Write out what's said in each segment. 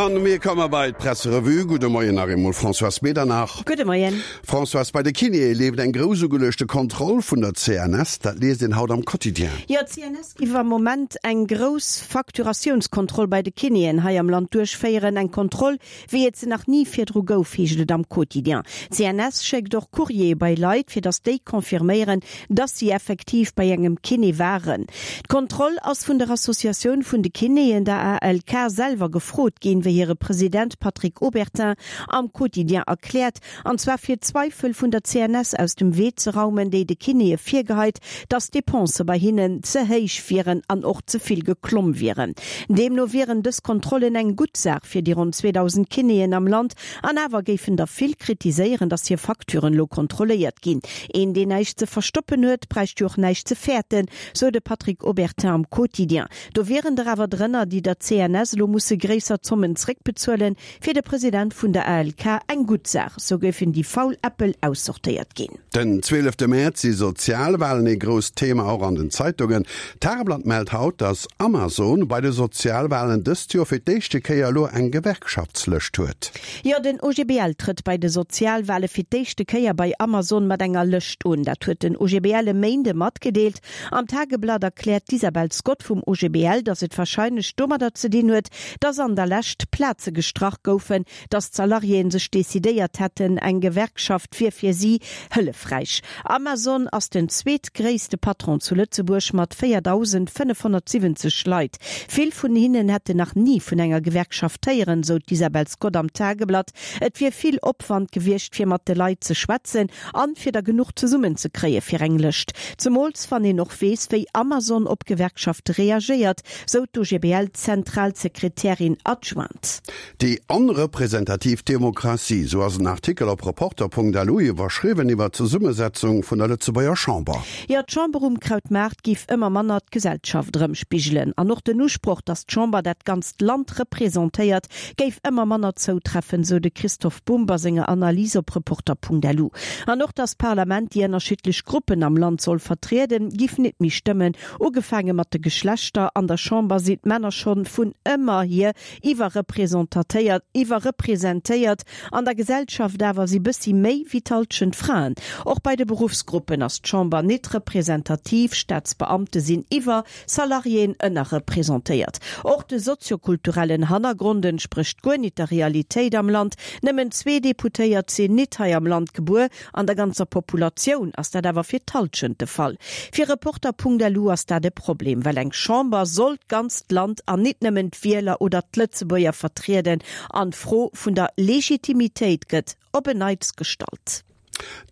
An mir komme bei d'Presserevue. Gudde Moien nach eemol Françoise Medernach. Gudde Moien. Françoise, bei de Kinéë leeft eng grouss ugeluechte Kontroll vun der CNS. Dat liest een haut am Quotidien. Jo, d'CNS giff am Moment eng grouss Facturatiounskontroll bei de Kinéen hei am Land duerchféieren. Eng Kontroll, wéi et se nach ni virdru gouf, heescht et am Quotidien. D'CNS schéckt och Courriere bei Leit, fir datt déi confirméieren, dass si effektiv bei engem Kiné waren. D'Kontroll ass vun der Associatioun vun de Kinéen, der ALK, selwer gefrot ginn, wéi hire President Patrick Obertin am Quotidien erkläert, an zwar fir d'Zweifel vun der CNS aus dem Wee ze raumen, déi de Kinéë virgeheit, dass d'Depensë bei hinnen ze héich wieren an och ze vill geklomm wieren. Deemno wieren dës Kontrollen eng gutt Saach fir déi ronn 2.000 Kinéen am Land, An awer géifen der vill kritiséieren, datt hir Facturen elo kontrolléiert ginn. Een, deen näischt ze verstoppen huet, bräicht jo och näischt ze fäerten, sou de Patrick Obertin am Quotidien. Do wieren der awer drënner, déi der CNS elo musse gréisser Zommen zréckbezuelen. Fir de President vun der ALK eng gutt Saach, sou géifen déi faul Äppel aussortéiert ginn. Den zwielefte Mäerz si Sozialwalen ee grousst Thema, och an den Zeitungen. D'Tageblatt mellt haut, datt Amazon bei de Sozialwalen dëst Joer fir d'éischte Kéier elo eng Gewerkschaftslëscht huet. Jo, den OGBL trëtt bei de Sozialwale fir d'éischte Kéier bei Amazon mat enger Lëscht un. Dat huet den OGBL e Méinde matgedeelt. Am Tageblatt erkläert d'Isabel Scott vum OGBL, datt et warscheinlech domadder ze dinn huet, datt an der Lescht Plaze gestrach goufen, Datt d'Salariéen sech decidéiert hätten, eng Gewerkschaft wier fir si hëllefräich. Amazon ass den zweetgréisste Patron zu Lëtzebuerg mat 4.570 Leit. Vill vun hinnen hätten nach ni vun enger Gewerkschaft héieren, sou d'Isabel Scott am Tageblatt. Et wier vill Opwand gewiescht, fir mat de Leit ze schwätzen an fir der genuch zesummen ze kréie fir eng Lëscht. Zemools wann een och weess, wéi Amazon op Gewerkschafte reagéiert, sou d'OGBL-Zentralsekretärin adjointe. Déi onrepresentativ Demokratie, sou ass en Artikel op Reporter.lu iwwerschriwwen iwwer d'Zesummesetzung vun der Lëtzebuerger Chamber. Jo, d'Chamber um Krautmaart giff ëmmer manner d'Gesellschaft erëmspigelen. An och den Usproch, datt d'Chamber dat ganzt Land representéiert, géif ëmmer manner zoutreffen, sou de Christoph Bumb a senger Analys op Reporter.lu. An och, datt d'Parlament déi ënnerschiddlech Gruppen am Land soll vertrieden, giff nit méi stëmmen. Ugefaange mat de Geschlechter, an der Chamber sinn d'Männer schonn vun ëmmer hier iwwerrepresentatéiert, iwwerrepresentéiert, an der Gesellschaft awer si bëssi méi wéi d'Halschent Fraen. Och bei de Beruffsgruppen ass d'Chamber nit representativ, Staatsbeamte sinn iwwer, Salariéen ënnerrepresentéiert. Och de soziokulturellen Hannergrond entsprécht guer nit der Realitéit am Land, nëmmen zwee Deputéiert sinn nit hei am Land gebuer, An der ganzer Populatioun ass dat awer fir d'Hallschent de Fall. Fir Reporter.lu ass dat e Problem, well eng Chamber soll d'ganzt Land an nit nëmmen d'Wieler oder d'Lëtzebuerger vertrieden an d'Fro vun der Legitimitéit gëtt op en Neits gestallt.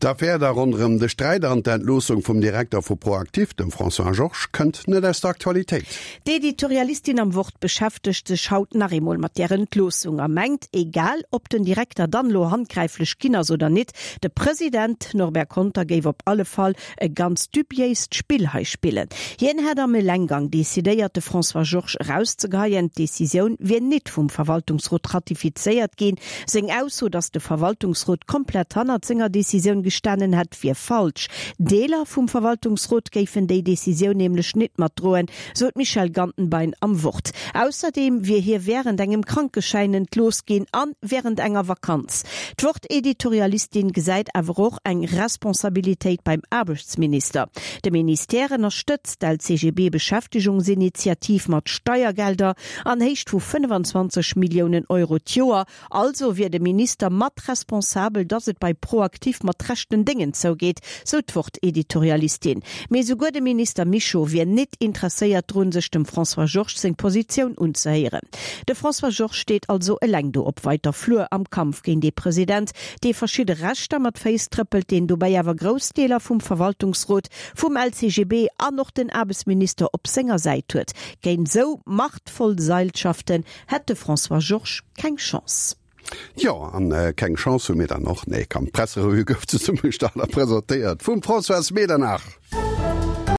D'Affär da ronderëm de Sträit an d'Entloossung vum Direkter vu ProActif, dem François Georges, kënnt net aus der Aktualitéit. D'Editorialistin am Wort beschäftegt sech haut nach eemol mat där Entloossung a mengt, egal ob den Direkter dann elo handgräiflech ginn ass oder nit, de President Norbert Conter géif op alle Fall e ganz dubiéist Spill hei spillen. Hien hätt am Elenggang decidéiert, de François Georges erauszegeheien. D'Decisioun wier nit vum Verwaltungsrot ratifizéiert ginn. Seng Ausso, datt de Verwaltungsrot komplett hannert senger Decisioun gestanen hätt, wier falsch. Deeler vum Verwaltungsrot géifen déi Decisioun nämlech nit matdroen, sou d'Michèle Gantenbein am Wort. Ausserdeem wier hie wärend engem Krankeschäin entlooss ginn an wärend enger Vakanz. D'Wort-Editorialistin gesäit awer och eng Responsabilitéit beim Aarbechtsminister. De Ministère ënnerstëtzt d'LCGB-Beschäftegungsinitiativ mat Steiergelder an Héicht vu 25 Milliounen Euro d'Joer Also wier de Minister mat responsabel, datt et bei ProActif mat rechten Déngen zougeet, sou d'Wort-Editorialistin. Mee souguer de Minister Mischo wier nit interesséiert drun, sech dem François Georges seng Positioun unzehéieren. De François Georges steet also eleng do op weiter Flur am Kampf géint ee President, dee verschidde Rechter mat Féiss trëppelt, deen dobäi awer grouss Deeler vum Verwaltungsrot, vum LCGB an och den Aarbechtsminister op senger Säit huet. Géint sou machtvoll Seilschaften Hätt de François Georges keng Chance. Jo, an keng Chance hu mir dann och. Nee, komm, d'Presserevue gouf zesummegestallt a presentéiert vum Françoise Medernach.